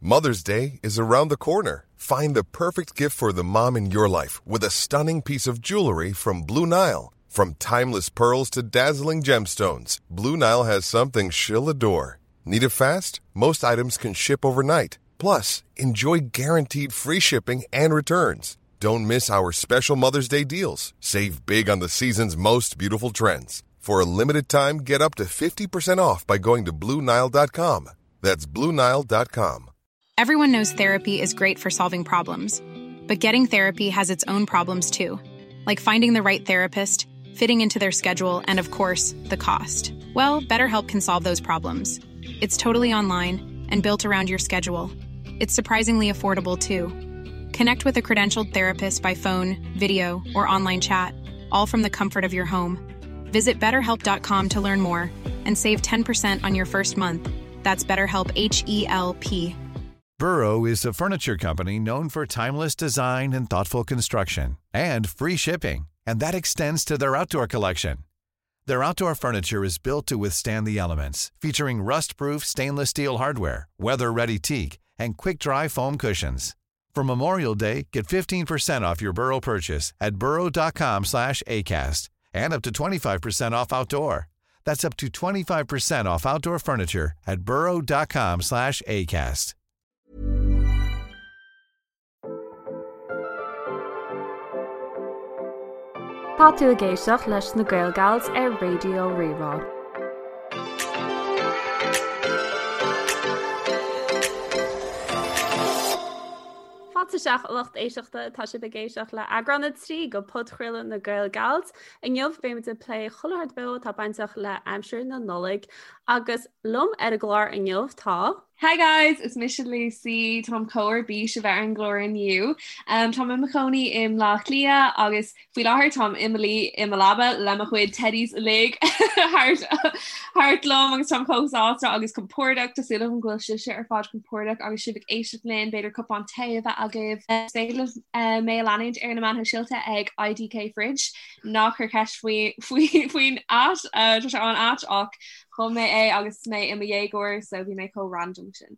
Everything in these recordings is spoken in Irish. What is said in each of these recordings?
Mother's Day is around the corner. Find the perfect gift for the mom in your life with a stunning piece of jewelry from Blue Nile. From timeless pearls to dazzling gemstones, Blue Nile has something she'll adore. Need it fast? Most items can ship overnight. Plus, enjoy guaranteed free shipping and returns. Don't miss our special Mother's Day deals. Save big on the season's most beautiful trends. For a limited time, get up to 50% off by going to Bluenile.com. That's Bluenile.com. Everyone knows therapy is great for solving problems, but getting therapy has its own problems too, like finding the right therapist, fitting into their schedule, and of course, the cost. Well, BetterHelp can solve those problems. It's totally online and built around your schedule. It's surprisingly affordable too. Connect with a credentialed therapist by phone, video, or online chat, all from the comfort of your home. Visit betterhelp.com to learn more and save 10% on your first month. That's BetterHelp H E L P. Burrow is a furniture company known for timeless design and thoughtful construction and free shipping, and that extends to their outdoor collection. Their outdoor furniture is built to withstand the elements, featuring rust-proof stainless steel hardware, weather-ready teak, and quick-dry foam cushions. For Memorial Day, get 15% off your Burrow purchase at burrow.com slash ACAST and up to 25% off outdoor. That's up to 25% off outdoor furniture at burrow.com slash ACAST. Tá tú ag éisteacht leis na Gaelgals ar Raidió Rí-Rá. Fáilte isteach a lucht éisteachta, tá sibh ag éisteacht le eagrán 3 de podchraoladh na Gaelgals. Inniu beimid ag plé chuile shórt beo atá bainteach le aimsir na Nollag agus liom ar an gclár inniu tá. Hi guys, is mise Lucy, táim chomh ar bís a bheith ar an gclár inniu. Um, táim i mo chónaí i mBleá Cliath agus faoi láthair táim i mo luí i mo leaba le mo chuid teddies uilig thart thart liom agus táim chomh sásta agus compordach Tá súil agam go bhfuil sibhse ar fad compordach agus sibh ag éisteacht linn, b'fhéidir cupán tae a bheith agaibh. Is féidir libh uh, mé a leanúint ar na meáin shóisialta ag IDK Fridge. Ná cuir ceist faoi faoi faoin at uh, tá sé an-ait ach Chum mé é agus mé i mo dhéagóir so bhí mé chomh random sin.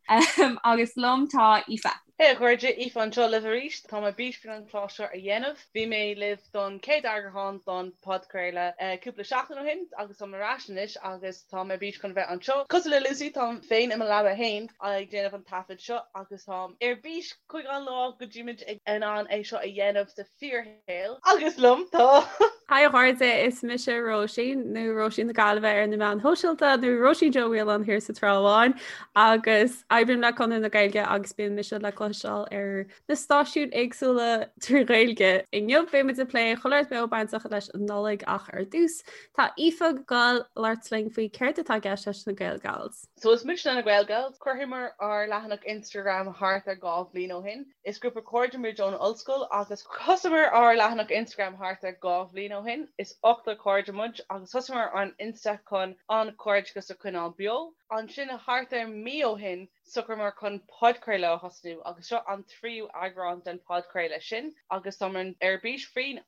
Agus liom tá Aoife. Hey a chairde, Aoife anseo libh arís. Tá mé ar bís faoin an clár seo a dhéanamh. Bhí mé libh don chéad eagrán don podchraoladh cúpla seachtain ó shin agus táim ar ais anois agus tá mé ar bís chun bheith anseo. Cosúil le Lucy, táim féin i mo leaba fhéin ag déanamh an taifead seo agus táim ar bís chuig an lá go dtímid in ann é seo a dhéanamh sa fíorshaol. Agus liom tá. Hi a chairde, is mise Róisín, nó Róisín na Gaillimhe ar na meáin shóisialta, nó Róisín Joe Whelan thiar sa Trá Bháin, agus oibrím le Conradh na Gaeilge agus bíonn mise le cloisteáil ar na stáisiúin éagsúla trí Ghaeilge. Inniu beimid ag plé chuile shórt beo bainteach leis an Nollaig ach ar dtús, tá Aoife ag gabháil labhairt linn faoi céard atá i gceist leis na Gaelgals. So is muidne na Gaelgals. Chruthaíomar ár leathanach Instagram thart ar 2 bhliain ó shin. Is grúpa cairde muid ón ollscoil agus thosaíomar ár leathanach Instagram thart ar 2 bhliain ó shin. Is ochtar cairde muid agus thosaíomar an Insta chun an cairdeachas a choinneáil beo. Ansin thart ar mí ó shin socraíomar chun podchraoladh a thosnú agus seo an tríú eagrán den podchraoladh sin agus táimid ar bís faoin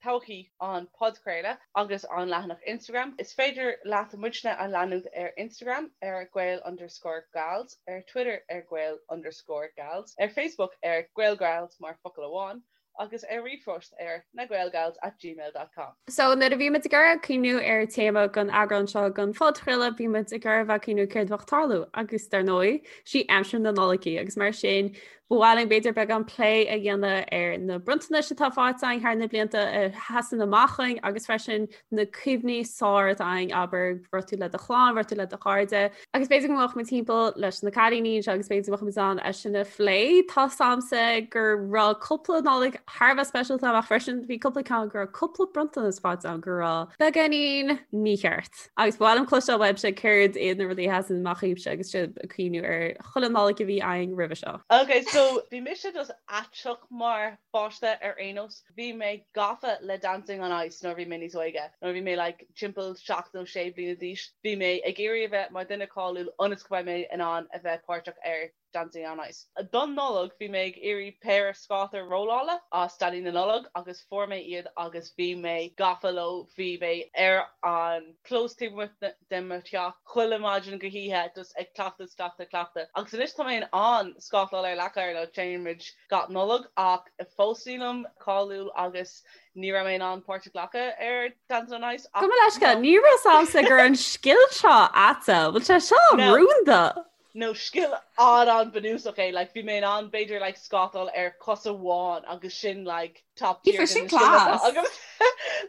todhchaí an podchraoladh agus an leathanach Instagram. Is féidir leat muidne a leanúint ar Instagram ar Gael underscore Gals, ar Twitter ar Gael underscore Gals, ar Facebook ar Gaelgals mar focal amháin, agus ar ríomhphost ar nagaelgals at gmail dot com. So nuair a bhí muid ag iarraidh cuimhniú ar téama don eagrán seo den phodchraoladh, bhí muid ag iarraidh bheith ag cuimhniú céard a bheadh ag tarlú agus dar ndóigh, sí aimsir na Nollag í agus mar sin Ba mhaith linn b'fhéidir beagán plé a dhéanamh ar na bronntanais atá faighte againn thar na blianta a sheasann amach chugainn agus freisin na cuimhní is fearr atá againn, abair, raibh tú le do chlann, raibh tú le do chairde. Agus b'fhéidir go mbeadh muid timpeall leis na cailíní anseo agus b'fhéidir go mbeadh muid in ann é sin a phlé. Tá 's a'msa go raibh cúpla Nollaig thar a bheith speisialta ach freisin bhí cúpla ceann go raibh cúpla bronntanas faighte agam go raibh beagáinín mícheart. Agus ba mhaith liom cloisteáil uaibhse céard iad na rudaí a sheasann amach dhaoibhse agus sibh ag cuimhniú ar chuile Nollaig a bhí againn roimhe seo. Ok, so bhí mise just aiteach mar pháiste ar aon nós. Bhí mé gafa le Dancing on Ice nuair a bhí mé níos óige. Nuair a bhí mé like timpeall 7 nó 6 bliana d'aois, bhí mé ag iarraidh a bheith mar duine cáiliúil ionas go mbeidh mé in ann a bheith páirteach ar. Dancing on Ice. Don Nollaig bhí mé ag iarraidh péire scáta rollála as Daidí na Nollag agus fuair mé iad agus bhí mé gafa leo, bhí mé ar an clós taobh amuigh de mo theach chuile maidin go hoíche just ag cleachtadh, cleachtadh, cleachtadh. Agus anois tá mé in ann scátáil ar leac oighir nó téann muid gach Nollaig ach fós nílim cáiliúil agus ní raibh mé in ann páirt a ghlacadh ar Dancing on Ice ach Gabh mo leithscéal, ní raibh a fhios agamsa go raibh an scil seo a'dsa, bhfuil sé seo rúnda? No scil an-an-bhunúsach é, like bhí mé in ann b'fhéidir like scátáil ar cos amháin agus sin like top tier sin class.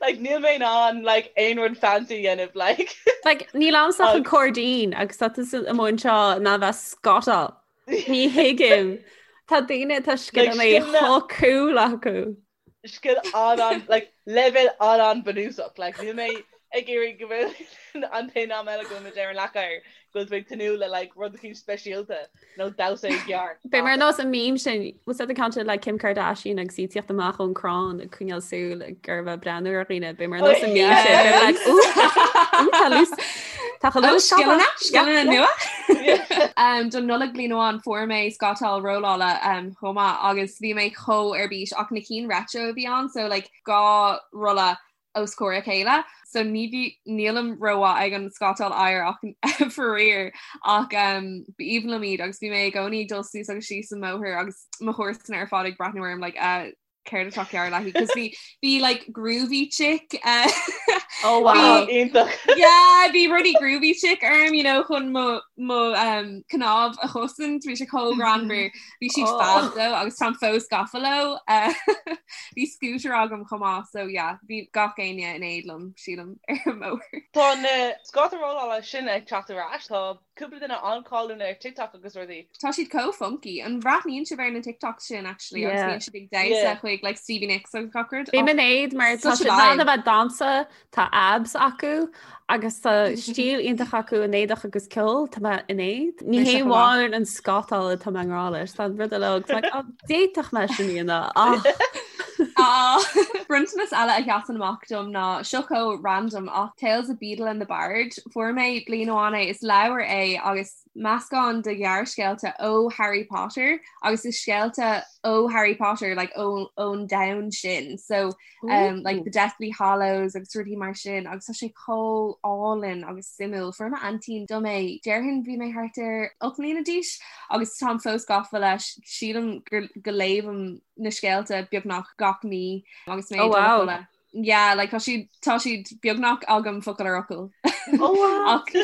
Like níl mé in ann like aon rud fancy a dhéanamh like. Like níl a'msa ach an cairdín agus tá tusa amuigh anseo in ann bheith scátáil. Ní thuigim. Tá daoine tá scileanna chomh cool acu. scil an-an like leibhéal an-an-bhunúsach like níl mé ag iarraidh go bhfuil an t-aon am eile go bhfuil muid ar an leac oighir go bhfuil tú ag tnúth le like rud eicínt speisialta nó damhsa i gceart. Beidh mar nós an meme sin was that the count like Kim Kardashian agus í ag tíocht amach ón crann ag coinneáil súil ag ar bheith breathnú ar dhaoine beidh mar nós an meme sin beidh like ooh ooh tá lús Tá chu lús scileanna scileanna nua. Don Nollaig bliain amháin fuair mé scátáil rollála chomh maith agus bhí mé chomh ar bís ach na cinn retro a bhí ann so like 2 rolla os comhair a chéile so ní bhí nílim rómhaith ag an scátáil oighir ach faraor ach um, b'aoibhinn liom iad agus bhí mé i gcónaí ag dul suas agus síos an mbóthar agus mo chomharsana ar fad ag breathnú orm like uh, céard atá cearr léi cos bhí bhí like groovy chick uh, Oh wow. Iontach. yeah bhí rudaí groovy chick orm you know chun mo mo um, cnámh a chosaint bhí sé chomh greannmhar bhí siad oh. fab though agus táim fós gafa leo uh, bhí scooter agam chomh maith so yeah bhí gach éinne in éad liom sílim ar an mbóthar. Tá na scáta rollála sin ag teacht ar ais tá cúpla duine an-cháiliúil ar TikTok agus rudaí. Tá siad chomh funky. An bhreathnaíonn sibh ar na TikToks sin actually agus bíonn siad ag damhsa chuig like Stevie Nicks agus gach rud? Bím in éad mar tá siad in ann a bheith damhsa, tá abs acu agus tá stíl iontach acu in éadach agus ceol, tá mé in éad. Ní hé amháin an scátáil atá mé i ngrá leis, tá an rud eile agus like, oh, d'fhéadfadh mé sin a dhéanamh ach. Ah, bronntanas eile a sheasann amach dom ná seo chomh random ach Tales of Beedle and the Bard. Fuair mé bliain amháin é, is leabhar é agus meascán de ghearrscéalta ó Harry Potter agus is scéalta ó Harry Potter like ón ón domhan sin. So um, like the Deathly Hallows agus rudaí mar sin agus tá sé chomh álainn agus suimiúil. Fuair m'aintín dom é déarfainn bhí mé thart ar 8 mbliana d'aois agus táim fós gafa leis sílim gur go léimim na scéalta beagnach gach mí agus mé oh, wow. Yeah, like, tá siad tá siad beagnach agam focal ar fhocal. Oh, wow. Ach,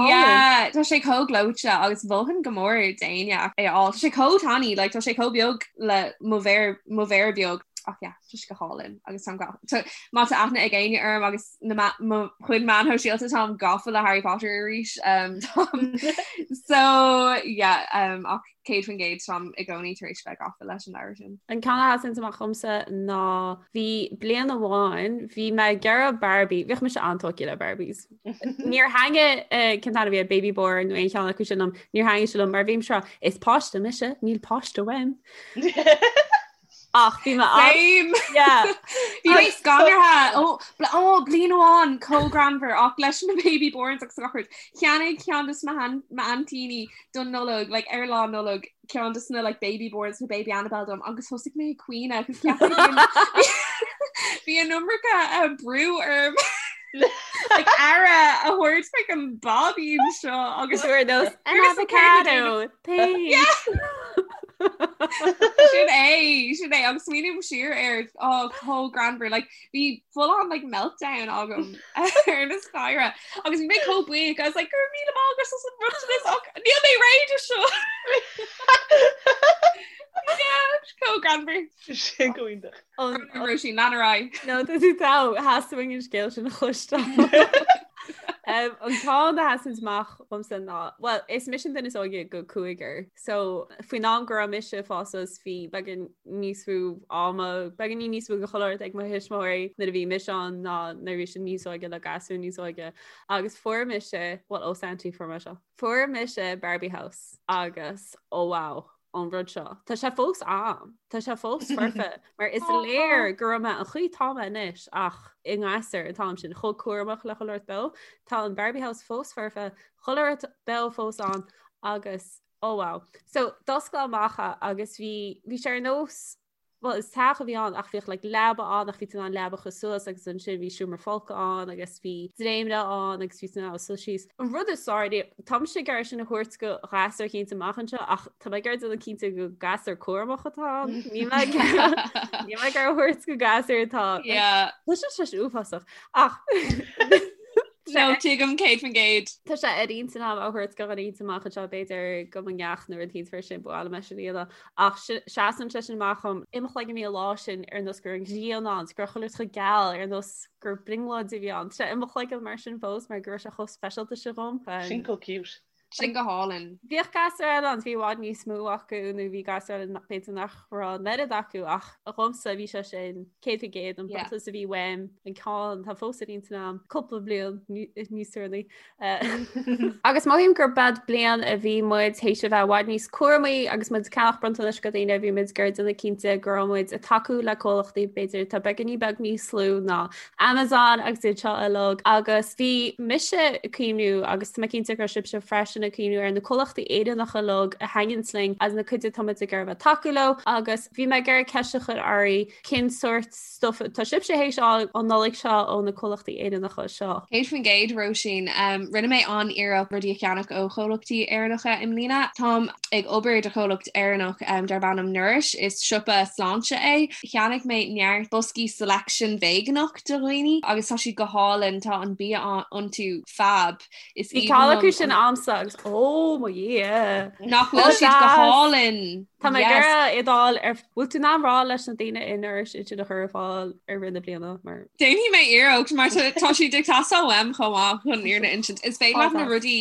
yeah, tá sé chomh gleoite agus mholfainn go mór d'éinne é a fháil. Tá sé chomh tiny, like, tá sé chomh beag le mo mhéar mo mhéar beag. Ach yeah, tá sé go hálainn agus táim ga- tá- má tá aithne ag éinne orm agus na ma- mo chuid meáin shóisialta táim gafa le Harry Potter arís. Um, táim- so yeah, um, ach 100% táim i gcónaí tar éis bheith gafa leis an leabhar sin. An ceann a sheasann amach dhomsa ná bhí bliain amháin bhí mé ag iarraidh Barbie, bhíodh mise an-tógtha le Barbies. Níor thaitnigh cén t-ainm a bhí Baby Born nó aon cheann acu sin liom, níor thaitnigh sé liom mar bhí mise ag rá is páiste mise, níl páiste uaim. Ach bhí mé Same! Yeah. Bhí mé scanraithe ó ó bliain amháin chomh greannmhar ach leis na Baby Borns agus gach rud. Cheannaigh ceann de m'aintíní don Nollaig like ar lá Nollag ceann de na like Baby Borns nó Baby Annabelle dom agus thosaigh mé ag caoineadh cos cheap mé bhí an iomarca uh, brú orm like aire a thabhairt like an báibín seo agus Sure nós an avocado thanks. Sin é sin é agus smaoiním siar air á chomh greannmhar like bhí full on like meltdown agam ar na staighre agus bhí mé chomh buíoch I was like go raibh míle maith agat as an mbronntanas ach níl mé réidh do seo. Yeah, chomh greannmhar. Sin go hiontach. Róisín lean ar aghaidh. No tá tú togha theastaigh uainn an scéal sin a chloisteáil. Um, an ceann a sheasann amach dhomsa ná, well, is mise an duine is óige de chúigear, so faoin am go raibh mise ag fás suas bhí beagán níos mó ama, beagáinín níos mó de chuile shórt ag mo thuismitheoirí nuair a bhí mise ann ná nuair a bhí siad níos óige le gasúir níos óige. Agus fuair mise, well, ó Santy fuair mé seo. Fuair mise Barbie House agus oh wow, an rud seo. Tá sé fós a'm, tá sé fós foirfe, mar is léir go raibh mé an chaoi tá mé anois ach i ngasúr an t-am sin chomh cúramach le chuile shórt beo. Tá an Barbie House fós foirfe, chuile shórt beo fós ann agus. Oh wow. So d'oscail amach é agus bhí bhí sé ar nós well is teach a bhí ann ach bhíodh like leaba ann ach bhí tú in ann leaba a chur suas agus ansin bhí seomra folctha ann agus bhí dréimire ann agus bhí tú in ann suí síos. An rud is fearr, táimse ag iarraidh sin a thabhairt go ghasúr eicínt amach anseo ach tá mé ag iarraidh déanamh cinnte go gasúr cúramach atá ann. Níl mé ag níl mé ag iarraidh a thabhairt go gasúr atá Yeah. Tá sé sé uafásach ach No, tuigim 100%. Tá sé ar intinn agam a thabhairt go dhuine eicínt amach anseo b'fhéidir go mo neacht nó rud eicínt mar sin ba mhaith liom é sin a dhéanamh ach seasann sé sin amach dhom i mo chloigeann bhí an lá sin ar nós go raibh an ghrian ann go raibh chuile rud chomh geal ar nós gur brionglóid a bhí ann. Tá sé i mo chloigeann mar sin fós mar go raibh sé chomh speisialta sin dhom. Sin chomh cute. Sin go hálainn. Bhíodh gasúir eile ann, bhí i bhfad níos mó acu nó bhí gasúir eile b'fhéidir nach raibh an oiread acu ach dhomsa bhí sé sin 100% an bronntanas a bhí uaim an ceann atá fós ar intinn agam cúpla bliain níos deireanaí. Agus mothaím gur b'ead bliain a bhí muid théis a bheith i bhfad níos cúramaí agus muid ag ceannach bronntanais go daoine bhí muid ag iarraidh déanamh cinnte go raibh muid ag tacú le comhlachtaí b'fhéidir atá beagáinín beag níos lú ná Amazon agus iad seo uilig agus bhí mise ag cuimhniú agus tá mé cinnte go raibh sibhse freisin ag cuimhniú ar na comhlachtaí Éireannacha uilig a thaitníonns linn as na cuid atá muid ag iarraidh a bheith tacú leo agus bhí mé ag iarraidh ceist a chur oraibh cén sórt stuff atá sibhse théis fháil an Nollaig seo ó na comhlachtaí Éireannacha seo. 100% Róisín. Rinne mé an-iarracht rudaí a cheannach ó chomhlachtaí Éireannacha i mbliana. Táim ag obair do chomhlacht Éireannach darb ainm Nourish. Is siopa sláinte é. Cheannaigh mé neart boscaí selection veigeánach do dhaoine agus tá siad go hálainn, tá an bia iontu fab. Is Bhí ceann acu sin a'msa agus ó mo Dhia! Nach bhfuil siad go hálainn! Tá mé ag iarraidh iad a fháil ar bhfuil tú in ann rá leis na daoine i Nourish iad sin a chur ar fáil i rith na bliana mar. Déanfaidh mé iarracht mar tá siad ag teastáil uaim chomh maith chun fhírinne a insint. Is féidir leat na rudaí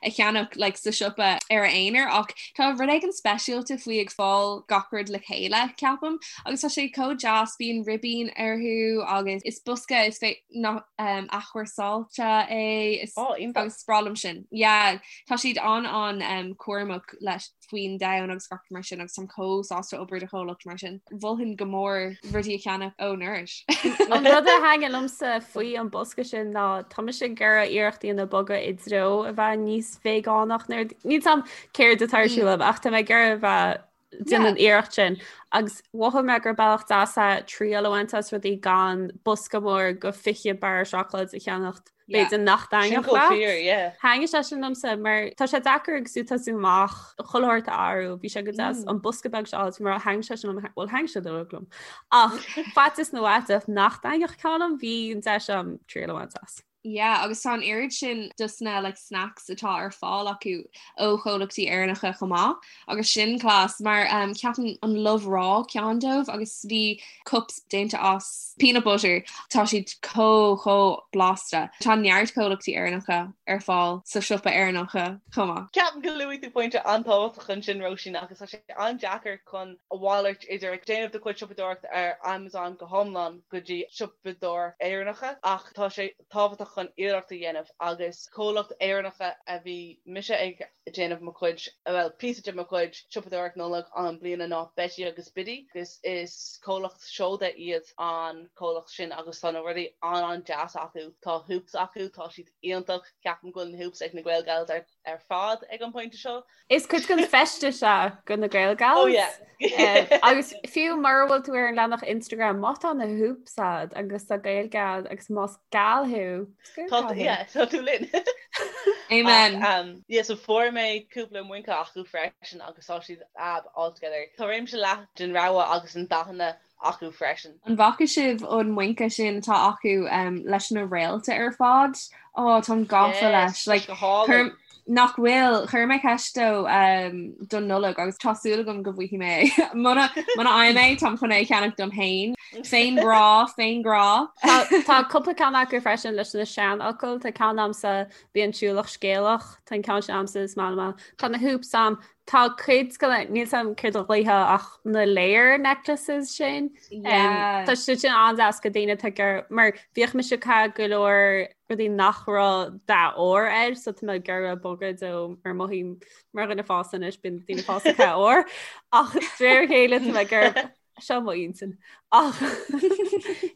a cheannach like, sa siopa ar a aonar ach tá rud éigin speisialta faoi ag fáil gach rud le chéile ceapaim agus tá sé chomh deas bíonn ribín orthu agus is bosca is fé nach um, athchúrsáilte é is oh, agus is breá liom sin. Yeah, tá siad an an um, cúramach leis faoin domhan agus gach mar sin agus táim chomh sásta obair do chomhlacht mar sin. Mholfainn go mór rudaí a cheannach ó Nourish. An rud a thaitnigh liomsa faoi an bosca sin ná tá mise ag iarraidh iarracht a dhéanamh bogadh i dtreo a bheith níos veigeánach níl a fhios a'm céard atá ar siúl a'm ach tá mé ag iarraidh a bheith déanamh an iarracht sin agus mhothaigh mé gur bealach deas é triail a bhaint as rudaí gan bosca mór go 20 barra seacláid a cheannacht B'fhéidir nach dtaitneodh leat. Thaitnigh sé sin liomsa mar tá sé deacair agus tú tosú amach chuile shórt a athrú, bhí sé go deas an bosca beag seo a mar thaitnigh sé sin liom, bhuel thaitnigh sé uilig liom. Ach faitíos na bhfaiteach nach dtaitneodh ceann liom, bhí an deis a'm triail a bhaint as. Yeah, agus tá an oiread sin dos na like, snacks atá ar fáil acu ó chomhlachtaí Éireannacha chomh maith agus sin class mar um, ceapaim an Love Raw ceann dóibh agus bhí cups déanta as peanut butter, tá siad chomh chomh blasta. Tá neart comhlachtaí Éireannacha ar fáil sa siopa Éireannacha chomh maith. Ceapaim go luaigh tú pointe an-tábhachtach ansin Róisín agus tá sé an-deacair chun a mhalairt idir ag déanamh do chuid siopadóireachta ar Amazon go hiomlán go dtí siopadóireacht Éireannacha ach tá sé tábhachtach chun iarracht a dhéanamh agus comhlacht Éireannacha a bhí mise ag déanamh mo chuid, bhuel, píosa de mo chuid siopadóireacht Nollag an bliana ná Betty agus Biddy agus is comhlacht seoda iad an comhlacht sin agus tá na rudaí an-an-deas acu. Tá hoops acu, tá siad iontach, ceapaim go bhfuil na hoops ag na Gael Gals ar ar fad ag an pointe seo. Is cuid den feisteas é go na Gael Gals. Oh yeah. Agus fiú mura bhfuil tú ar an leathanach Instagram, má tá na hoops a'd agus tá Gaeilge a'd agus más gal thú, Tá yeah, tá tú linn. Amen. Ach, um, yeah, so fuair mé cúpla muince acu freisin agus tá siad fab altogether. Tá réimse leathan den rogha agus den dathanna acu freisin. An bhfaca sibh an muince sin atá acu um, leis na réalta ar fad? Ó, táim gafa leis. Like, go hálainn. chuir- nach bhfuil, chuir mé ceist dó um, don Nollaig agus tá súil agam go bhfaighidh mé é. Muna muna fhaighim é, táim chun é a cheannach dom féin. Féinghrá, féinghrá. Tá cúpla ceann acu freisin leis na seanfhocail, tá ceann a'msa bí an siúlach scéalach, tá an ceann sin a'msa is maith liom. Tá na hoops a'm, tá cuid de na, níl 's a'm céard a ghlaofa ach na layer necklaces sin. Tá siad sin an-deas go daoine atá ag mar bhíodh mise ag caitheamh go leor rudaí nach raibh dath óir air so tá mé ag iarraidh bogadh dó mar mothaím mar dhuine fásta anois bíonn daoine fásta ag caitheamh ór ach de réir a chéile tá mé ag iarraidh Seo mo intinn. Ach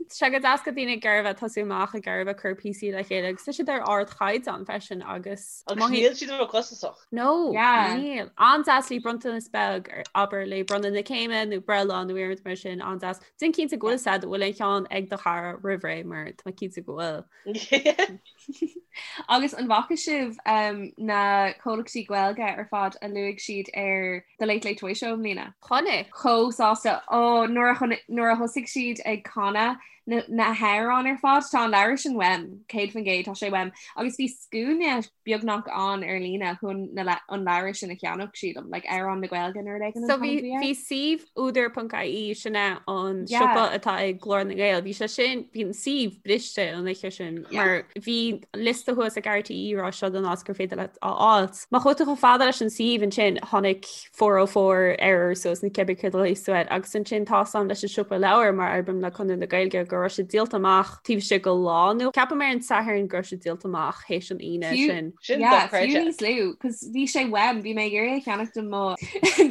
tá sé go deas go daoine ag iarraidh bheith tosú amach ag iarraidh bheith cur píosaí le chéile agus tá siad ar ardchaighdeán freisin agus Agus níl siad ró-chostasach. No, níl. An-deas le bronntanas beag abair le bronnadh na céime nó breithlá nó aon rud mar sin an-deas. Déan cinnte go bhfuil siad bhfuil aon cheann ag do chara roimh ré mar tá mé cinnte go bhfuil. Agus an bhfaca sibh um, na comhlachtaí Gaeilge ar fad a luaigh siad ar The Late Late Toy Show i mbliana? Chonaic. Chomh sásta ó nuair a nuair a thosaigh siad ag canadh na, na hamhráin ar fad tá an leabhar sin uaim 100% tá sé uaim agus bhí scuaine beagnach ann ar líne chun na an leabhar sin a cheannach sílim, like amhrán na Gaeilge nó rud éigin an So bhí t-ainm a bhí air. bhí suíomh údar.ie sin é an Yeah. siopa atá ag Glór na nGael. Bhí sé sin bhí an suíomh briste an oíche sin Yeah. mar bhí liosta thuas ag RTÉ rá seo don áit gur féidir leat a fháilt. Má chuaigh tú chomh fada leis an suíomh ansin tháinig 404 error suas nó cibé céard a ghlaoigh tú air agus ansin tá a fhios agam leis an siopa leabhar mar oibrím le Conradh na Gaeilge go raibh sé díolta amach taobh istigh de lá nó ceapaim ar an Satharn go raibh sé díolta amach théis an Aoine sin. Sin Yeah, fiú dochreidte. níos lú, cos bhí sé uaim, bhí mé ag iarraidh a cheannach do mo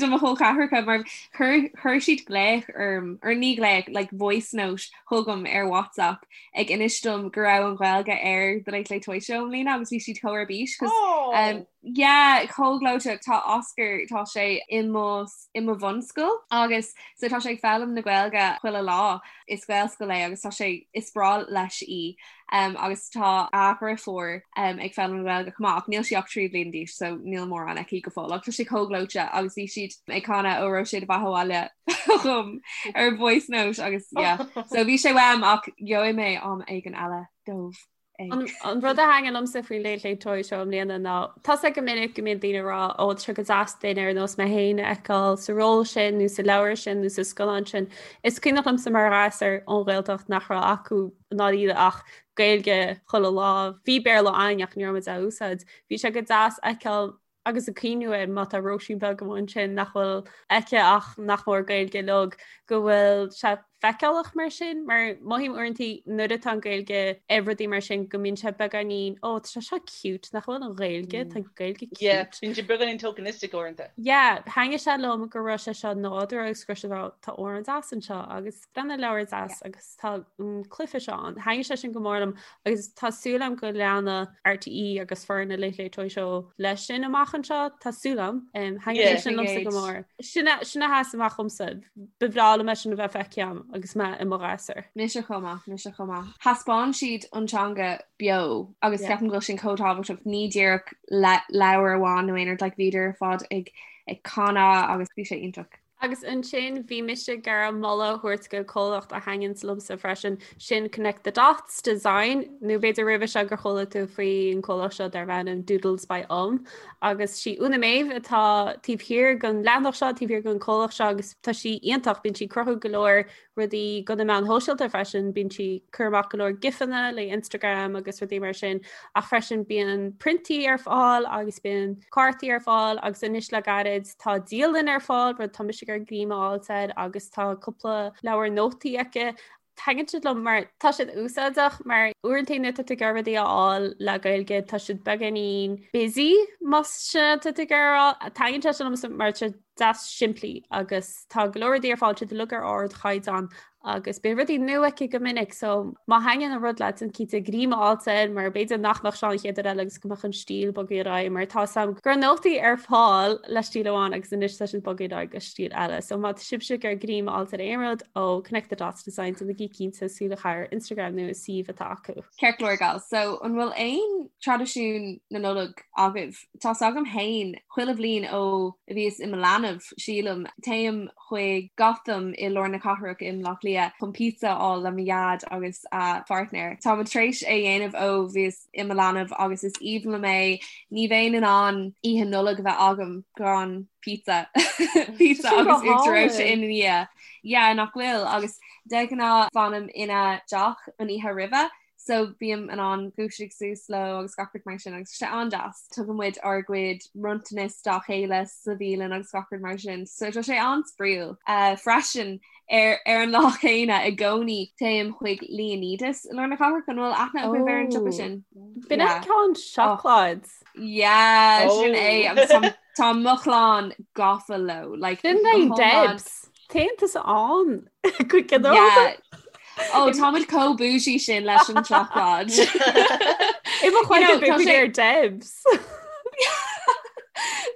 do mo chol ceathracha mar chuir chuir siad glaoch orm, or ní glaoch, like voice note chugam ar WhatsApp ag inis dom go raibh an Ghaeilge ar The Late Late Toy Show i mbliana agus bhí siad chomh ar bís cos Oh! um, yeah, chomh gleoite tá Oscar tá sé i mo i mo bhunscoil agus so tá sé ag foghlaim na Gaeilge chuile lá is Gaelscoil é agus tá sé is breá leis í um, agus tá a dheirfiúr um, ag foghlaim na Gaeilge chomh maith ach níl sí ach 3 bliain d'aois so níl mórán aici go fóill ach tá sé chomh gleoite agus bhí siad ag canadh Óró Sé do Bheatha 'Bhaile chugam ar voice note agus yeah. so bhí sé uaim ach gheobhaidh mé am éigin eile dóibh. An rud a thaitnigh liomsa faoin Late Late Toy Show i mbliana ná tá a fhios agat go minic go mbíonn daoine ag rá ó tá sé go deas duine ar nós mé féin a fheiceáil sa ról sin nó sa leabhar sin nó sa scannán sin. Is cuimhneach liomsa mar ghasúr ón Ghaeltacht nach raibh acu i ndáiríre ach Gaeilge chuile lá. Bhí Béarla againn ach ní raibh muid á úsáid. Bhí sé go deas a fheiceáil agus ag cuimhniú air má tá Róisín beag amuigh ansin nach bhfuil aici ach nach mór Gaeilge uilig go bhfuil sé feiceálach mar sin, mar mothaím uaireanta nuair atá an Ghaeilge ar rudaí mar sin go mbíonn sé beagáinín ó tá sé seo cute nach bhfuil an Ghaeilge tá Gaeilge cute. Yeah, bíonn sé beagáinín tokenistic uaireanta. Yeah, thaitnigh sé liom go raibh sé seo nádúrtha agus go raibh sé tá amhrán deas anseo agus breathnaigh leabhar deas agus tá an cluiche seo ann. Thaitnigh sé sin go mór liom agus tá súil agam go leanfaidh RTÉ agus foireann na Late Late Toy Show leis sin amach anseo tá súil agam. Thaitnigh sé sin liomsa go mór. Sin a sin a sheas amach dhomsa. Ba bhreá liom é sin a bheith feicthe agam agus mé i mo ghasúr. Mise chomh maith, mise chomh maith. Thaispeáin siad an teanga beo agus ceapaim go bhfuil sin chomh tábhachtach ní díreach le leabhar amháin nó aon rud like bhíodar ar fad ag ag canadh agus bhí sé iontach. Agus ansin bhí mise ag iarraidh moladh a thabhairt go comhlacht a thaitníonns liomsa freisin, sin Connect the Dots Design, nó b'fhéidir roimhe seo gur chuala tú faoi an comhlacht seo darb ainm Doodles by Um. Agus sí Úna Méabh atá taobh thiar den leathanach seo, taobh thiar den comhlacht seo agus tá sí iontach, bíonn sí ag cruthú go leor rudaí do na meáin shóisialta freisin, bíonn sí ag cur amach go leor gifanna le Instagram agus rudaí mar sin, ach freisin bíonn priontaí ar fáil agus bíonn cártaí ar fáil agus anois le gairid tá dialann ar fáil, rud tá mise ag iarraidh greim a fháilt air agus tá cúpla leabhar nótaí aici. Taitníonn siad liom mar tá siad úsáideach mar uaireanta nuair atá tú ag iarraidh rudaí a fháil le Gaeilge tá siad beagáinín busy más sin atá tú ag iarraidh a rá. Taitníonn sé sin liomsa mar tá siad deas simplí agus tá go leor rudaí ar fáil, siad uilig ar ardchaighdeán agus bíonn rudaí nua aici go minic so má thaitníonn an rud leat déan cinnte greim a fháilt air mar b'fhéidir nach mbeadh sé an chéad uair eile agus go mbeadh an stíl bogtha ar aghaidh mar tá a fhios agam go raibh nótaí ar fáil le stíl amháin agus anois tá siad bogtha ar aghaidh go stíl eile. So má tá sibhse ag iarraidh greim a fháilt ar aon rud ó Connect the Dots Design déanaigí cinnte súil a chaitheamh ar Instagram nó an suíomh atá acu. Ceart go leor gals, so an bhfuil aon traidisiún na Nollag agaibh? Tá's agam fhéin, chuile bhliain ó a bhíos i mo leanbh, sílim, téim chuig Gotham i lár na cathrach i mBleá Cliath chun pizza a fháil le mo dhaid agus a pháirtnéir. Táimid tar éis é dhéanamh ó bhíos i mo leanbh agus is aoibhinn liom é. Ní bheinn in ann oíche Nollag a bheith agam gan pizza. Pizza agus uachtar reoite ina dhiaidh. Yeah, nach bhfuil? Agus de ghnáth fanaim ina dteach an oíche roimhe So bím in ann dúiseacht suas leo agus gach rud mar sin agus tá sé an-deas. Tugann muid ár gcuid bronntanas dá chéile sa bhialann agus gach rud mar sin. So tá sé an-spraíúil. Uh, freisin ar, ar an lá céanna i gcónaí téim chuig Leonidas i lár na cathrach an bhfuil aithne agaibh ar an siopa oh. sin. B'in yeah. ceann seacláid. Oh. Yeah, oh. sin é agus tá mo chlann gafa leo. Like, Sin é Debs. Téann tusa ann go ginearálta. Ó táimid chomh bougie sin leis an tseacláid. I mo chloigeann bheadh muid ar Debs.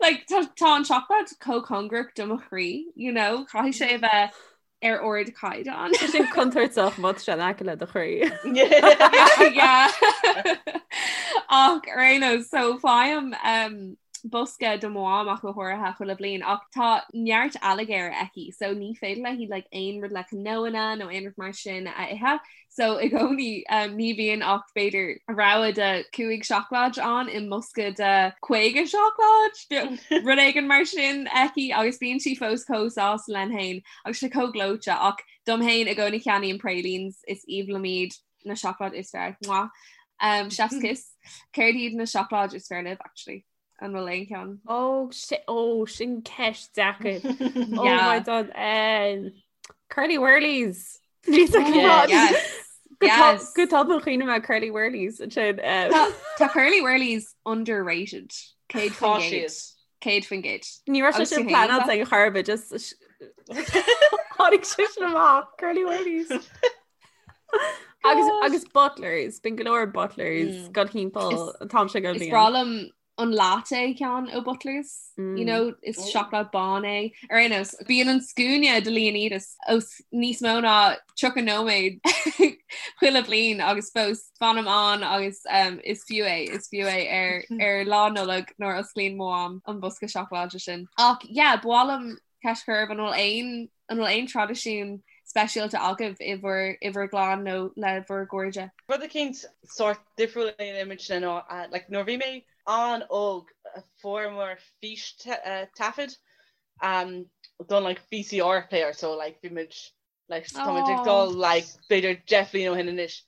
Like tá tá an tseacláid chomh cóngarach do mo chroí, you know, caithfidh sé a bheith ar ardchaighdeán. Tá sin contúirteach má tá sé in aice le do chroí. Yeah. Ach ar aon nós, so faighim um, bosca do mo mham ach go háirithe chuile bhliain ach tá neart ailléirge aici so ní féidir léi like aon rud le cnónna nó aon rud mar sin a ithe so i gcónaí um, ní bhíonn ach b'fhéidir rogha de 5 seacláid ann i mbosca de 50 seacláid rud éigin mar sin aici agus bíonn sí fós chomh sásta lena féin agus sé chomh gleoite ach dom féin i gcónaí ceannaím pralines is aoibhinn liom iad na seacláid is fearr. Mwah. Um, chef's kiss. Céard iad na seacláid is fearr libh actually? An bhfuil aon cheann? Ó ó sin ceist deacair. Oh yeah. my God. Um, Curly Wurlies. Oh, yes. Yes. Go tobann chuimhnigh mé Curly Wurlies sin. Um... Tá Curly Wurlies underrated. 100%. 100%. Ní raibh sé sin pleanáilte ag chor ar bith just tháinig sé sin amach Curly Wurlies. Agus agus Butlers, bíonn go leor Butlers mm. go timpeall an t-am seo go Is breá liom an latte ceann ó Butlers, mm. you know, is oh. seacláid bán é. Ar aon nós, bíonn an scuaine do Leonidas os níos mó ná 30 nóiméad chuile bliain agus fós fanaim ann agus um, is fiú é, is fiú é ar, ar lá Nollag nuair a osclaíonn mo mham an bosca seacláide sin. Ach yeah, ba mhaith liom ceist a chur oraibh an bhfuil aon An bhfuil aon traidisiún speisialta agaibh i bhur i bhur gclann nó le bhur gcairde? Rud eicínt sórt difriúil a dhéanaimidne ná like nuair a bhí mé an-óg fuaireamar fístaifead don like VCR player so like bhí muid like tá muid ag dul like b'fhéidir 10 bhliain ó shin anois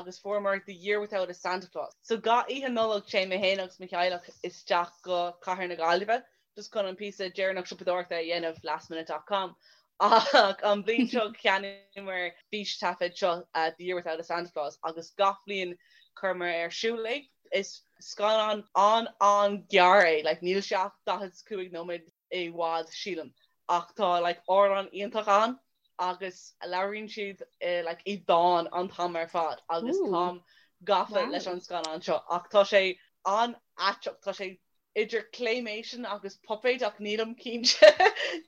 agus fuaireamar The Year Without a Santa Claus. So gach oíche Nollag téann mé féin agus mo theaghlach isteach go Cathair na Gaillimhe just chun an píosa deireanach siopadóireachta a dhéanamh lastminute dot com ach an bhliain seo cheannaíomar fístaifead seo The Year Without a Santa Claus agus gach bliain chuireamar ar siúl é. Is scannán an-an-ghearr é, like níl sé ach 45 nóiméad i bhfad sílim ach tá like amhrán iontach ann agus labhraíonn siad like i dán an t-am ar fad agus táim gafa leis an scannán seo ach tá sé an-aiteach, tá sé idir claymation agus puipéid ach nílim cinnte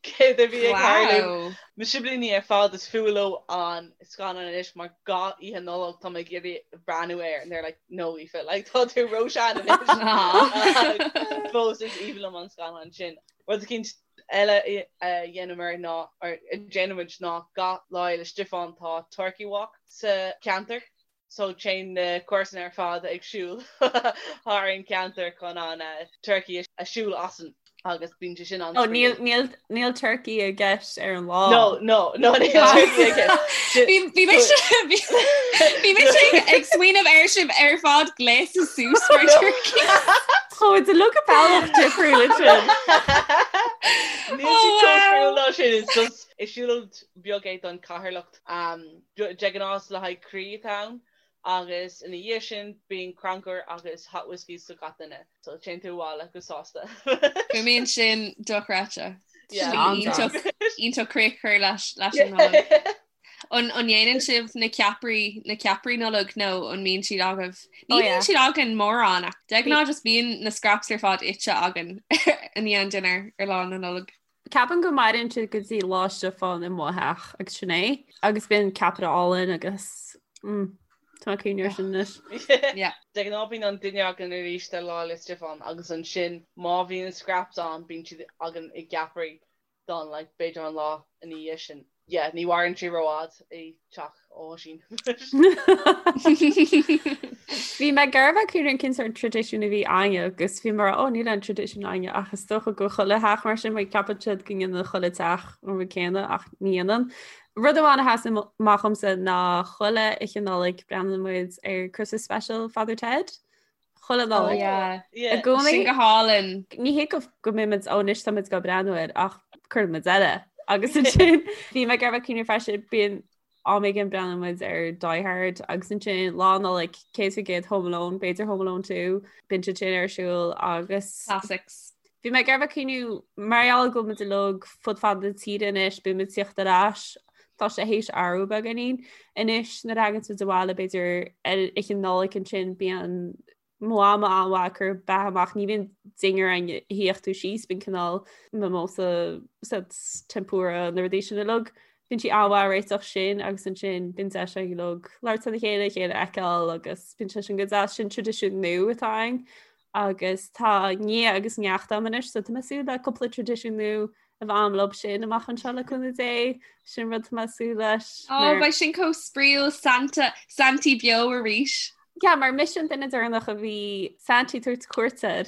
céard a bhí ag tarlú. Mo siblíní ar fad is fuath leo an scannán anois mar gach oíche Nollag tá mé ag iarraidh breathnú air and they're like no Aoife like tá tú róshean anois. Fós is aoibhinn liom an scannán sin. Rud eicínt eile a dhéanamar ná or a déanaimid ná gach Lá Fhéile Stiofáin tá Turkey Walk sa cheantar. So téann na comharsana ar fad ag siúl thar an ceantar chun an turkey a siúl asainn agus bíonn sé sin an Oh, níl, níl, níl turkey i gceist ar an lá. No, no, no, níl turkey i gceist. Bhí bhí mise bhí mise ag smaoineamh ar sibh ar fad gléasta suas mar turkey. Oh, it's a look a bealach difriúil sin. Níl sé chomh difriúil ná sin, it's just is siúlóid beag é don chathairleacht. De ghnáth is le haghaidh croí atá ann agus ina dhiaidh sin bíonn crannchur agus hot whiskies do gach duine. So téann tú abhaile go sásta. Fuaimníonn sin dochreidte. Iontach iontach críoch a chur leis leis an Nollaig. An an ndéanann sibh na ceapairí na ceapairí Nollag nó an mbíonn siad agaibh? Ní oh, bhíonn siad againn mórán ach de ghnáth just bíonn na scraps ar fad ite againn i ndiaidh an dinnéar ar lá na Nollag. Ceapaim go maireann siad go dtí Lá Stiofáin i mo theach agus sin é agus bíonn ceapaire álainn agus mm, tá mé ag cuimhneamh air sin anois. Yeah. De ghnáth bíonn an dinnéar againn arís ar Lá 'le Stiofáin agus ansin má bhíonn scraps ann bíonn siad againn i gceapairí don like b'fhéidir an lá ina dhiaidh sin. Yeah, ní mhaireann sé rófhada i teach Oisín. Bhí mé ag iarraidh bheith cuimhneamh cén sórt traidisiún a bhí againne agus bhí mé ó níl aon traidisiún againne ach is dócha go chuile theach mar sin mar ceapann siad go ndéanann chuile teach an rud céanna ach ní dhéanann. Rud amháin a sheas amach dhomsa ná chuile oíche Nollag breathnaíonn muid ar Christmas Special Father Ted. Chuile Nollaig. Oh, I gcónaí. Sin go hálainn. Ní hé go go mbeimid ó anois táimid ag breathnú air ach cuireann muid eile. Agus ansin bhí mé ag iarraidh cuimhneamh freisin bíonn am éigin breathnaíonn muid ar Die Hard agus ansin Lá Nollag 100% Home Alone, b'fhéidir Home Alone 2, bíonn siad sin ar siúl agus Classics. Bhí mé ag iarraidh cuimhniú mar gheall go bhfuil muid uilig fud fad na tíre anois, bíonn muid ag tíocht ar ais, tá sé théis athrú beagáinín anois nuair a thagann muid abhaile b'fhéidir ar oíche Nollag ansin bíonn mo mham an-mhaith ag cur beatha amach, ní bhíonn dinnéar againn a shuífeadh tú síos, bíonn cineál mimosa tempura na rudaí sin uilig. Bíonn sí an-mhaith ag réiteach sin agus ansin bíonn deis againn uilig labhairt lena chéile, a chéile a fheiceáil agus bíonn sé sin go deas, sin traidisiún nua atá againn. agus tá nia agus neacht agam anois so tá mé ag súil le cúpla traidisiún nua a bheith agam leo sin amach anseo le cúnamh Dé sin rud tá mé ag súil leis. Ó beidh sin chomh spraíúil Santa Santaí beo arís. Yeah, mar mise an duine deireanach a bhí Santaí ag tabhairt cuairt air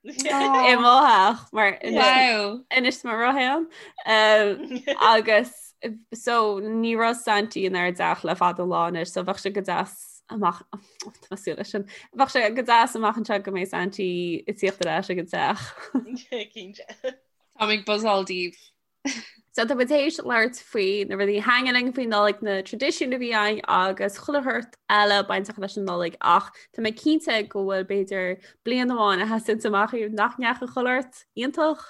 i mo theach mar anois mo rothéan agus so ní raibh Santaí inár dteach le fada an lá anois so bheadh sé go deas amach tá mé ag súil leis sin. Bheadh sé go deas amach anseo go mbeidh Santaí ag tíocht ar ais ag an teach. Cinnte. Táim ag buzzáil daoibh. So tá muid théis labhairt faoi na rudaí a thaitníonn linn faoin Nollaig, na traidisiúin a bhí againn agus chuile shórt eile bainteach leis an Nollaig ach tá mé cinnte go bhfuil b'fhéidir bliain amháin a sheasann amach daoibh nach ndeachaigh chuile shórt iontach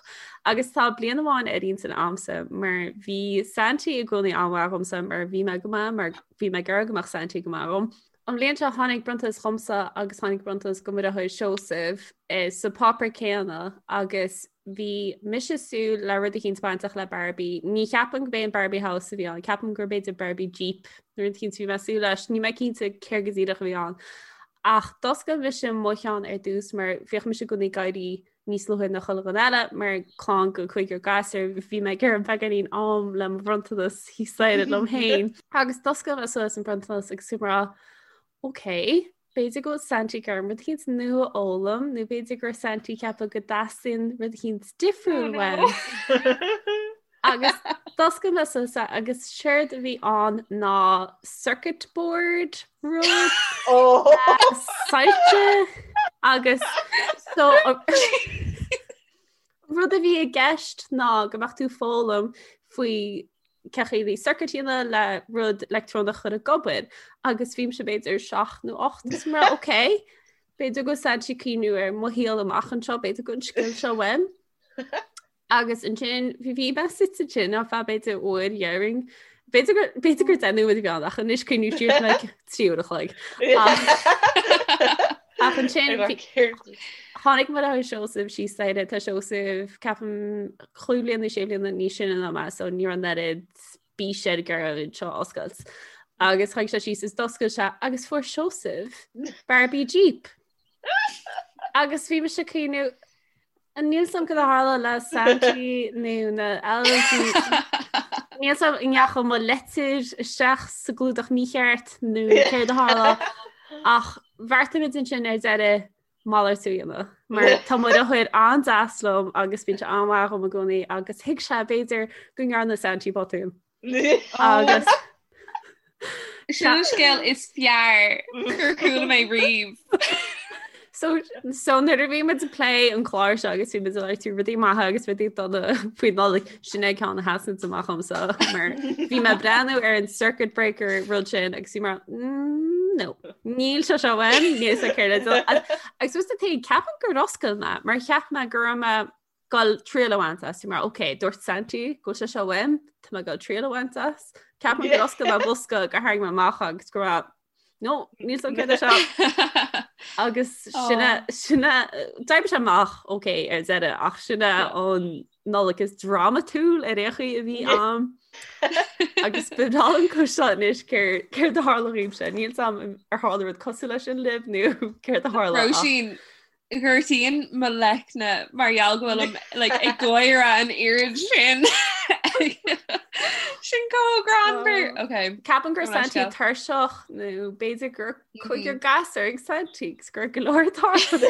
agus tá bliain amháin ar intinn a'msa mar bhí Santaí i gcónaí an-mhaith dhomsa mar bhí mé go maith mar bhí mé ag iarraidh go mbeadh Santaí go maith dhom. An bhliain seo tháinig bronntanas dhomsa agus tháinig bronntanas do mo dheartháir Seosamh eh, sa páipéar céanna agus bhí mise ag súil le rud eicínt bainteach le Barbie. Ní cheapaim go b'é an Barbie House a bhí ann, ceapaim gur b'fhéidir Barbie Jeep nó rud eicínt a bhí mé ag súil leis, níl mé cinnte céard go díreach a bhí ann. Ach d'oscail mise mo cheann ar dtús mar bhíodh mise i gcónaí ag éirí níos luaithe ná chuile dhuine eile mar clann go cúigear gasúr bhí mé ag iarraidh beagáinín am le mo bhronntanas thíos staighre liom féin. Agus d'oscail mé suas an bronntanas agus bhí mé ag rá ok, b'fhéidir go bhfuil Santaí ag iarraidh rud eicínt nua a fhoghlaim nó b'fhéidir go raibh Santaí ag ceapadh go dteastaíonn rud eicínt difriúil uaim. Agus d'oscail mé suas é agus séard a bhí ann ná circuit board rud soilse agus so rud a bhí i gceist ná go mbeadh tú ag foghlaim faoi cén chaoi le circuit a dhéanamh le rud leictreonach a chur ag obair agus bhí mise b'fhéidir 7 nó 8 is mar ok b'fhéidir go bhfuil Santaí ag cuimhniú ar mo shaol amach anseo b'fhéidir go bhfuil an scil seo uaim. Agus ansin bhí bhí mé suite ansin ar feadh b'fhéidir uair déarfainn. B'fhéidir gur b'fhéidir gur 10 nóiméad a bhí ann ach anois cuimhním siar like 3 uair a chloig. Ach ansin tháinig mo dheartháir Seosamh síos staighre tá Seosamh ceapaim chúig bliana nó sé bliana níos sine ná mé so ní raibh an oiread bís air ag iarraidh an seo a oscailt. Agus tháinig sé síos is d'oscail sé agus fuair Seosamh Barbie Jeep. Agus bhí mise ag cuimhniú Níl a fhios agam cad a tharla le Santaí nó na elves. Níl a fhios agam an ndeachaigh mo leitir isteach sa gclúdach mícheart nó céard a tharla ach bheartaigh muid ansin ar deireadh malartú a dhéanamh. Mar tá mo dheartháir an-deas liom agus bíonn sé an-mhaith dhom i gcónaí agus thuig sé b'fhéidir go ndearna Santaí botún. Agus Sin an scéal is fearr gur chuala mé riamh. So, so nuair a bhí muid ag plé an clár seo agus bhí muid ag labhairt faoi rudaí maithe agus rudaí dona faoi Nollaig sin é ceann a sheasann amach dhomsa mar bhí mé ag breathnú ar an circuit breaker rud sin agus bhí mar mm, no níl sé seo uaim níl sé céard agus was the thing ceapaim gur oscail mé mar cheap mé go raibh mé goil triail a bhaint as mar ok dúirt Santaí go bhfuil sé seo uaim tá mé goil triail a bhaint as Ceapaim gur oscail mé bosca gur tharraing mé amach agus go raibh no níl a fhios agam céard é seo agus sin sin d'oibrigh sé amach ok ar deireadh ach sin é an Nollaig is drámatúil ar aon chaoi a bhí agam agus ba bhreá liom cloisteáil anois céard a tharla dhaoibhse níl a fhios agam ar tharla rud cosúil leis sin libh nó céard a tharla Róisín Gortaíonn mo leicne mar gheall go bhfuilim like, ag gáire an oiread sin. Sin chomh greannmhar. Oh. Okay. Ceapaim go raibh Santaí tuirseach nó b'fhéidir gur cúigear gasúr ag Santaí agus gur go leor tarlú.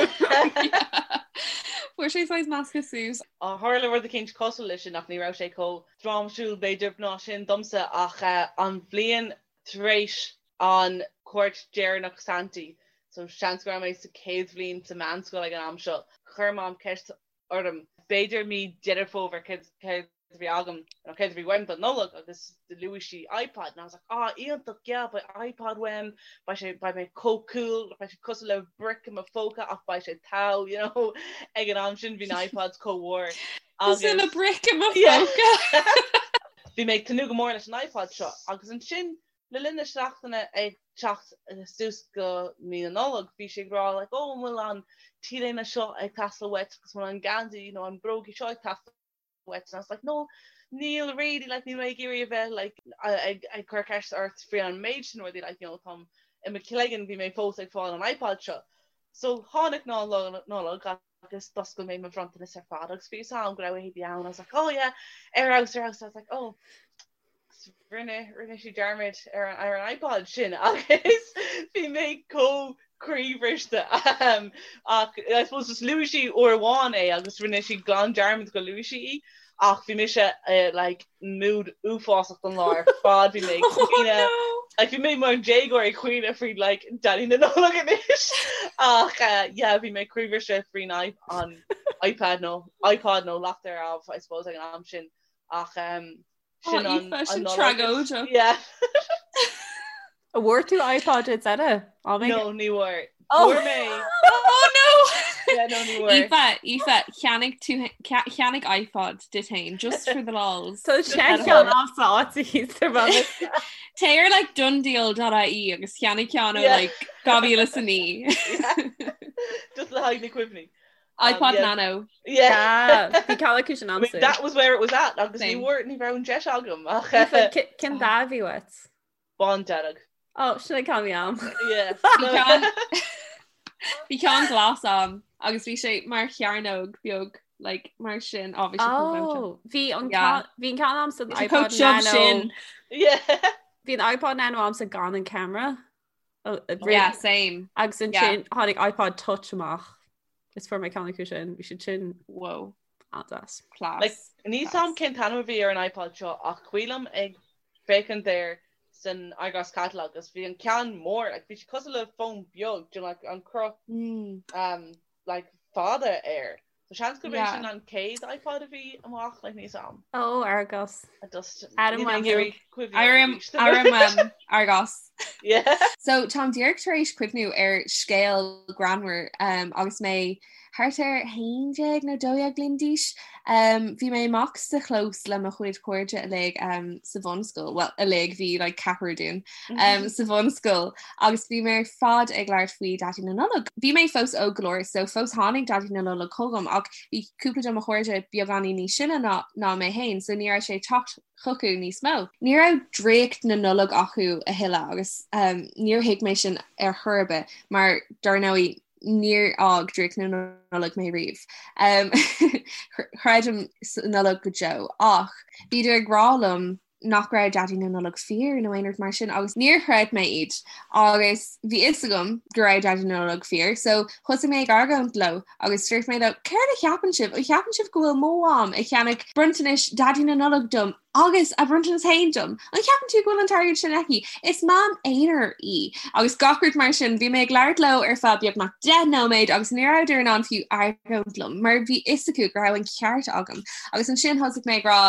Fuair sé saghas measctha suas. Tharla rud eicínt cosúil leis sin ach ní raibh sé chomh drámatúil b'fhéidir ná sin domsa ach eh, an bhliain tar éis an cuairt deireanach Santaí, so seans go raibh mé sa chéad bhliain sa meánscoil ag an am seo. Chuir Mam ceist orm, b'fhéidir mí Deireadh Fómhair, céard a bhí agam nó céard a bhí uaim don Nollaig agus luaigh sí iPod and I was like ah iontach yeah beidh iPod uaim beidh sé beidh mé chomh cool beidh sé cosúil le brick i mo phóca ach beidh sé togha you know ag an am sin bhí na iPods chomh mhór Cosúil le brick i mo phóca. Bhí mé ag tnúth go mór leis an iPod seo agus ansin le linn na seachtaine ag teacht suas go mí na Nollag bhí sí ag rá like oh an bhfuil an t-léine seo ag teastáil uait agus an bhfuil an geansaí nó an brógaí seo ag teastáil uait and I was like no níl really like níl mé ag iarraidh a bheith like ag ag cur ceist ort faoi an méid sin rudaí like you know táim i mo chloigeann bhí mé fós ag fáil an iPod seo. So tháinig ná Nollag agus d'oscail mé mo bhronntanas ar fad agus bhí fhios a'm go raibh éadaí ann I was like oh yeah ar fheabhas ar fheabhas I was like oh rinne rinne sí dearmad ar an ar an iPod sin agus bhí mé chomh croíbhriste um, ach I suppose just luaigh sí uair amháin é agus rinne sí glan dearmad go luaigh sí í ach bhí mise uh, like mood uafásach don lá ar fad bhí mé ag Oh caoineadh no! like bhí mé mar déagóir ag caoineadh faoi like Daidí na Nollag anois ach uh, yeah bhí mé croíbhriste faoin an iPad nó iPod nó lacht ar ámh I suppose ag an am sin ach um, Oh, sin an Aoife, sin an Nollaig. tragóideach. Yeah. An bhfuair tú iPod ar deireadh? Á mé? No, ní bhfuair. Oh. Fuair mé. Oh no! Yeah, no, ní bhfuair. Aoife, Aoife, cheannaigh tú cheannaigh iPod duit féin, just for the lols. Tá sé ceann a'msa áit a thíos ar bhealach. Téigh ar like donedeal.ie agus cheannaigh ceann ó Yeah. like 2009. Just le haghaidh na cuimhní. Um, iPod yeah. Nano. Yeah. Bhí ceann acu sin I mean, a'msa. that was where it was at agus ní Same. bhfuair ní raibh an deis agam ach Aoife, Cén dath a bhí uait? bándearg. Ó, sin an ceann a bhí a'm. Yeah. Bhí ceann Bhí ceann glas a'm agus bhí sé mar chearnóg beag like mar sin á bhí sé chomh gleoite. Oh, bhí an Yeah. ceann bhí an ceann a'msa an Bhí sé iPod chomh tiubh Nano. sin. Yeah. Bhí an iPod Nano a'msa gan an camera. Oh, Yeah, same. Agus Yeah. ansin tháinig iPod Touch amach. Is fuair mé ceann acu sin, bhí siad sin Whoa. an-deas. Class. Like, níl 's a'm cén t-ainm a bhí ar an iPod seo ach cuimhin liom ag féachaint air san Argos Catalogue agus bhí an ceann mór, like, bhí sé cosúil le fón beag, do you know, like, an cruth Mm. um, like, fada air. So seans gurb é Yeah. sin an chéad iPod a bhí amach, like, níl 's a'm. Ó, Argos. I just Adam níl mé ag Wembley. iarraidh cuimhneamh Airím arís. airím um, Argos. Yeah. So táim díreach tar éis cuimhniú ar scéal greannmhar um, agus mé thart ar 11 nó 12 bliain d'aois. Um, bhí mé amach sa chlós le mo chuid cairde uilig um, sa bhunscoil, well uilig bhí like, ceathrar dúinn um, sa bhunscoil agus bhí mé ar fad ag labhairt faoi Daidí na Nollag. Bhí mé fós óg go leor so fós tháinig Daidí na Nollag chugam ach bhí cúpla de mo chairde beagáinín níos sine ná, ná mé féin so ní raibh sé ag teacht chucu níos mó. Ní raibh draíocht na Nollag acu a thuilleadh agus um, níor thuig mé sin ar chor ar bith mar dar ndóigh níor fhág draíocht na Nollag mé riamh. Um, chreidim sa Nollag go deo ach bhíodar ag rá liom nach raibh Daidí na Nollag fíor nó aon rud mar sin agus níor chreid mé iad agus bhí fhios agam go raibh Daidí na Nollag fíor so thosaigh mé ag argóint leo agus dúirt mé leo céard a cheapann sibh? An cheapann sibh go bhfuil mo mham ag ceannach bronntanais Daidí na Nollag dom agus a bronntanas féin dom? An cheapann tú go bhfuil an t-airgead sin aici? Is mam aonair í agus gach rud mar sin. Bhí mé ag labhairt leo ar feadh beagnach 10 nóiméad agus ní rabhadar in ann fiú argóint liom mar bhí fhios acu go raibh an ceart agam agus ansin thosaigh mé ag rá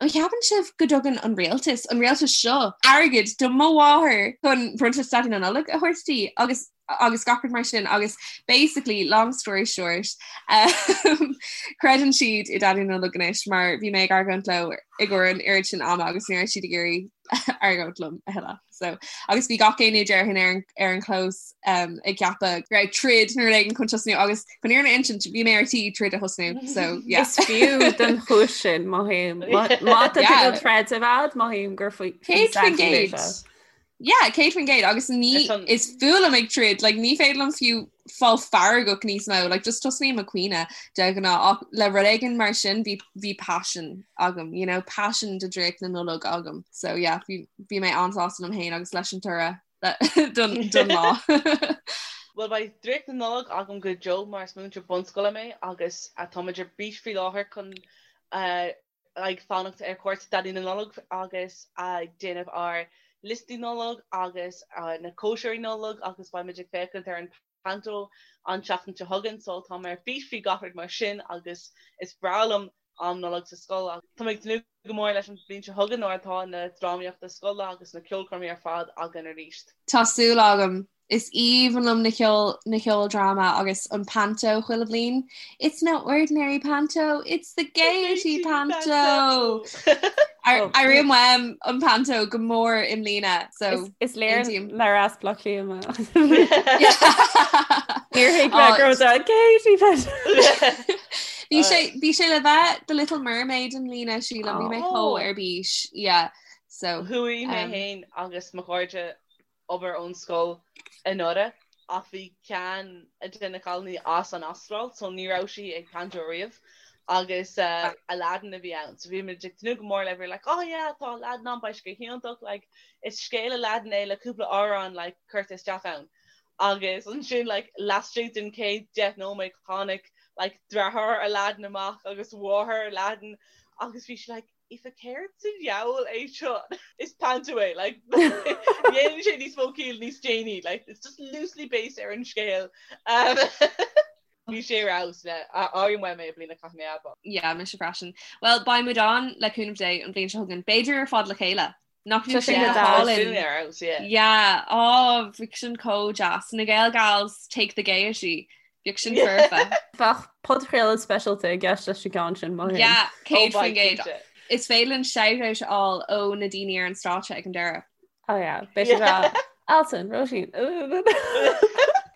An cheapann sibh go dtugann an rialtas, an rialtas seo, airgead do mo mháthair chun bronntanas Daidí na Nollag a thabhairt di agus agus gach rud mar sin agus basically, long story short, um, creideann siad i Daidí na Nollag anois mar bhí mé ag argóint leo i gcomhair an oiread sin ama agus ní raibh siad ag iarraidh argóint liom a thuilleadh. So, agus bhí gach éinne déarfainn ar an, ar an chlós um, ag ceapadh go raibh troid nó rud éigin chun tosnú agus chun an fhírinne a insint bhí mé ar tí troid a thosnú. So, yeah. Is fiú don chúis sin mothaím. Má tá tú ag troid a bhead mothaím gur faoi 100%. Yeah, 100% agus ní is fuath liom ag troid, like, ní féidir liom fiú fáil feargach níos mó, like, just tosnaím ag caoineadh de ghnáth ach le rud éigin mar sin bhí bhí passion agam, you know, passion do draíocht na Nollag agam. So yeah, bhí bhí mé an-sásta liom féin agus leis an toradh don don lá. Bhuel beidh draíocht na Nollag agam go deo mar is múinteoir bunscoile mé agus táimid ar bís faoi láthair chun ag fanacht ar chuairt Daidí na Nollag agus ag déanamh ár liostaí Nollag agus na cóisirí Nollag agus beimid ag féachaint ar an Panto an tseachtain seo chugainn so tá mé ar bís faoi gach rud mar sin agus is breá liom. Am Nollag sa scoil ach tá mé ag tnúth go mór leis an bhliain seo chugainn nuair atá na drámaíochta scoile agus na ceolchoirmí ar fad againn arís. Tá súil agam. Is aoibhinn liom na ceol na ceoldráma agus an panto chuile bhliain. It's no ordinary panto, it's the Gaiety Panto! Airíonn uaim an panto go mór i mbliana so Is léir nár as Baile Átha Cliath mé. Níor thuig mé go raibh sé Gaiety Panto! Bhí sé bhí sé le bheith The Little Mermaid i mbliana sílim, bhí mé chomh ar bís, yeah so. Chuaigh mé féin agus mo chairde obair ón scoil anuraidh ach bhí ceann de na cailíní as an Astráil so ní raibh sí ag panto riamh agus Aladdin a bhí ann so bhí muid ag tnúth go mór le bhí like oh yeah tá Aladdin ann beidh sé go hiontach like is scéal Aladdin é le cúpla amhrán like curtha isteach ann agus ansin like laistigh den chéad 10 nóiméad tháinig like deartháir Aladdin amach agus mháthair Aladdin agus bhí sí like Aoife céard sa diabhal é seo? Is panto é, like, dhéanann sé níos mó ciall níos déanaí, like, it's just loosely based ar an scéal. Um, bhí sé ar fheabhas le airím uaim é i mbliana caithfidh mé a admháil. Yeah, mise freisin. Well, beidh muid ann le cúnamh Dé an bhliain seo chugainn. B'fhéidir ar fad le chéile. Nach bhfuil sé go hálainn. Ar fheabhas, yeah. Yeah, oh, bheadh sin chomh deas. Na Gael Gals take the gaiety. Bheadh sin foirfe. Bheadh podchraoladh speisialta i gceist leis an gceann sin, mothaím. Yeah, 100%. Is féidir linn shout-out a fháil ó na daoine ar an stáitse ag an deireadh. Oh yeah, beidh sé rá. Alison, Róisín.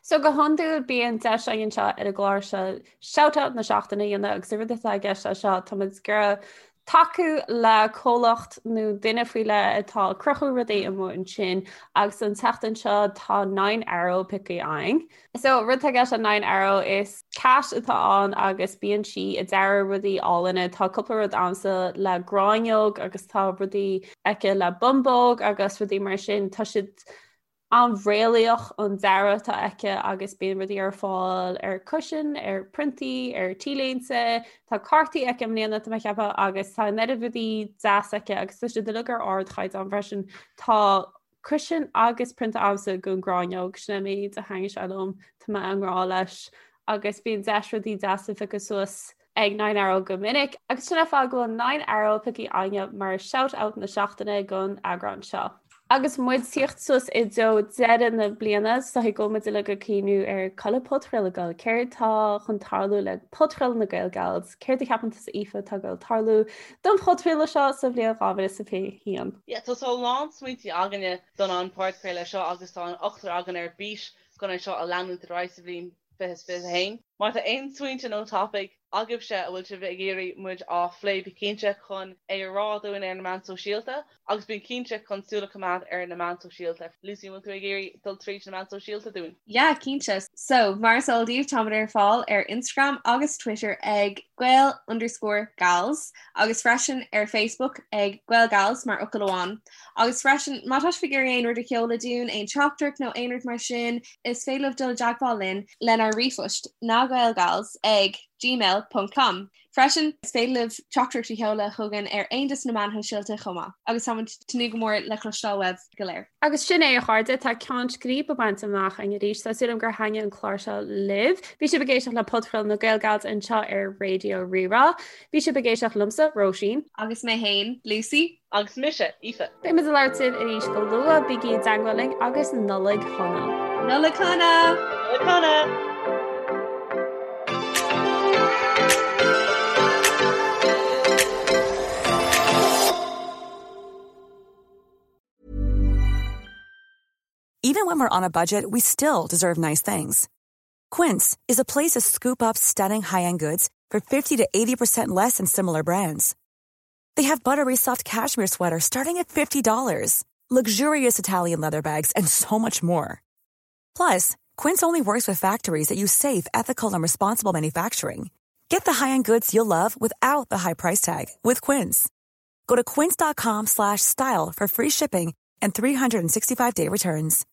So go hiondúil bíonn deis againn anseo ar an gclár seo shout-out na seachtaine a dhéanamh agus an rud atá i gceist leis seo tá muid ag iarraidh tacú le comhlacht nó duine faoi leith atá ag cruthú rudaí amuigh ansin agus an tseachtain seo tá Nine Arrow pioctha againn. So rud atá i gceist le Nine Arrow is cat atá ann agus bíonn sí ag dearadh rudaí álainne. Tá cúpla rud agamsa le gráinneog agus tá rudaí aici le bumbóg agus rudaí mar sin. Tá siad an-réalaíoch an dearadh atá aici agus bíonn rudaí ar fáil ar cushion, ar priontaí, ar t-léinte, tá cártaí aici i mbliana tá mé ag ceapadh agus tá an oiread rudaí deas aici agus tá siad uilig ar ardchaighdeán freisin. Tá cushion agus prionta agamsa den ghráinneog, sin é an méid a thaitníonn sé liom, tá mé i ngrá leis agus bíonn deis rudaí deasa a phiocadh suas ag Nine Arrow go minic, agus sin an fáth go bhfuil Nine Arrow pioctha againne mar shout out na seachtaine don eagrán seo. Agus muid tíocht suas i dtreo deireadh na bliana, is dóigh go bhfuil muid uilig ag cuimhniú ar cá bhfuil an podchraoladh ag dul, céard tá chun tarlú le podchraoladh na Gael Gals, céard a cheapann tusa Aoife atá ag dul tarlú don phodchraoladh seo sa bhliain 2021? Yeah, tá a lán smaointe againne don an podchraoladh seo agus tá an ochtar againn ar bís chun é seo a leanúint ar aghaidh sa bhliain 2021. Má tá aon smaointe nó topaic agaibhse a bhfuil sibh ag iarraidh muid á phlé bí cinnte chun é a rá dúinn ar na meáin sóisialta agus bí cinnte chun súil a choimeád ar na meáin sóisialta. Lucy, an bhfuil tú ag iarraidh dul tríd na meáin sóisialta dúinn? Yeah, cinnte. So, mar is eol daoibh, táimid ar fáil ar Instagram agus Twitter ag gael underscore gals agus freisin ar Facebook ag Gael Gals mar fhocal amháin. Agus freisin, má tá sibh ag iarraidh aon rud a sheoladh dúinn, aon teachtaireacht nó aon rud mar sin, is féidir libh dul i dteagmháil linn lenár ríomhphost nagaelgals ag gmail ponc com. Freisin, is féidir libh teachtaireacht a sheoladh chugainn ar aon de na meáin shóisialta chomh maith. Agus táimid ag tnúth go mór le cloisteáil uaibh go léir. Agus sin é, a chairde, tá ceann scríbe bainte amach againn arís. Tá súil agam gur thaitnigh an clár seo libh. Bhí sibh ag éisteacht le Podchraoladh na Gael Gals anseo ar Raidió Rí-Rá. Bhí sibh ag éisteacht liomsa, Róisín. Agus mé féin, Lucy. Agus mise, Aoife. Beidh muid ag labhairt libh arís go luath, bígí i dteagmháil linn agus Nollaig Shona! Nollaig Shona! Nollaig Shona! Even when we're on a budget, we still deserve nice things. Quince is a place to scoop up stunning high-end goods for 50 to 80% less than similar brands. They have buttery soft cashmere sweaters starting at $50, luxurious Italian leather bags, and so much more. Plus, Quince only works with factories that use safe, ethical, and responsible manufacturing. Get the high-end goods you'll love without the high price tag with Quince. Go to quince.com slash style for free shipping and 365-day returns.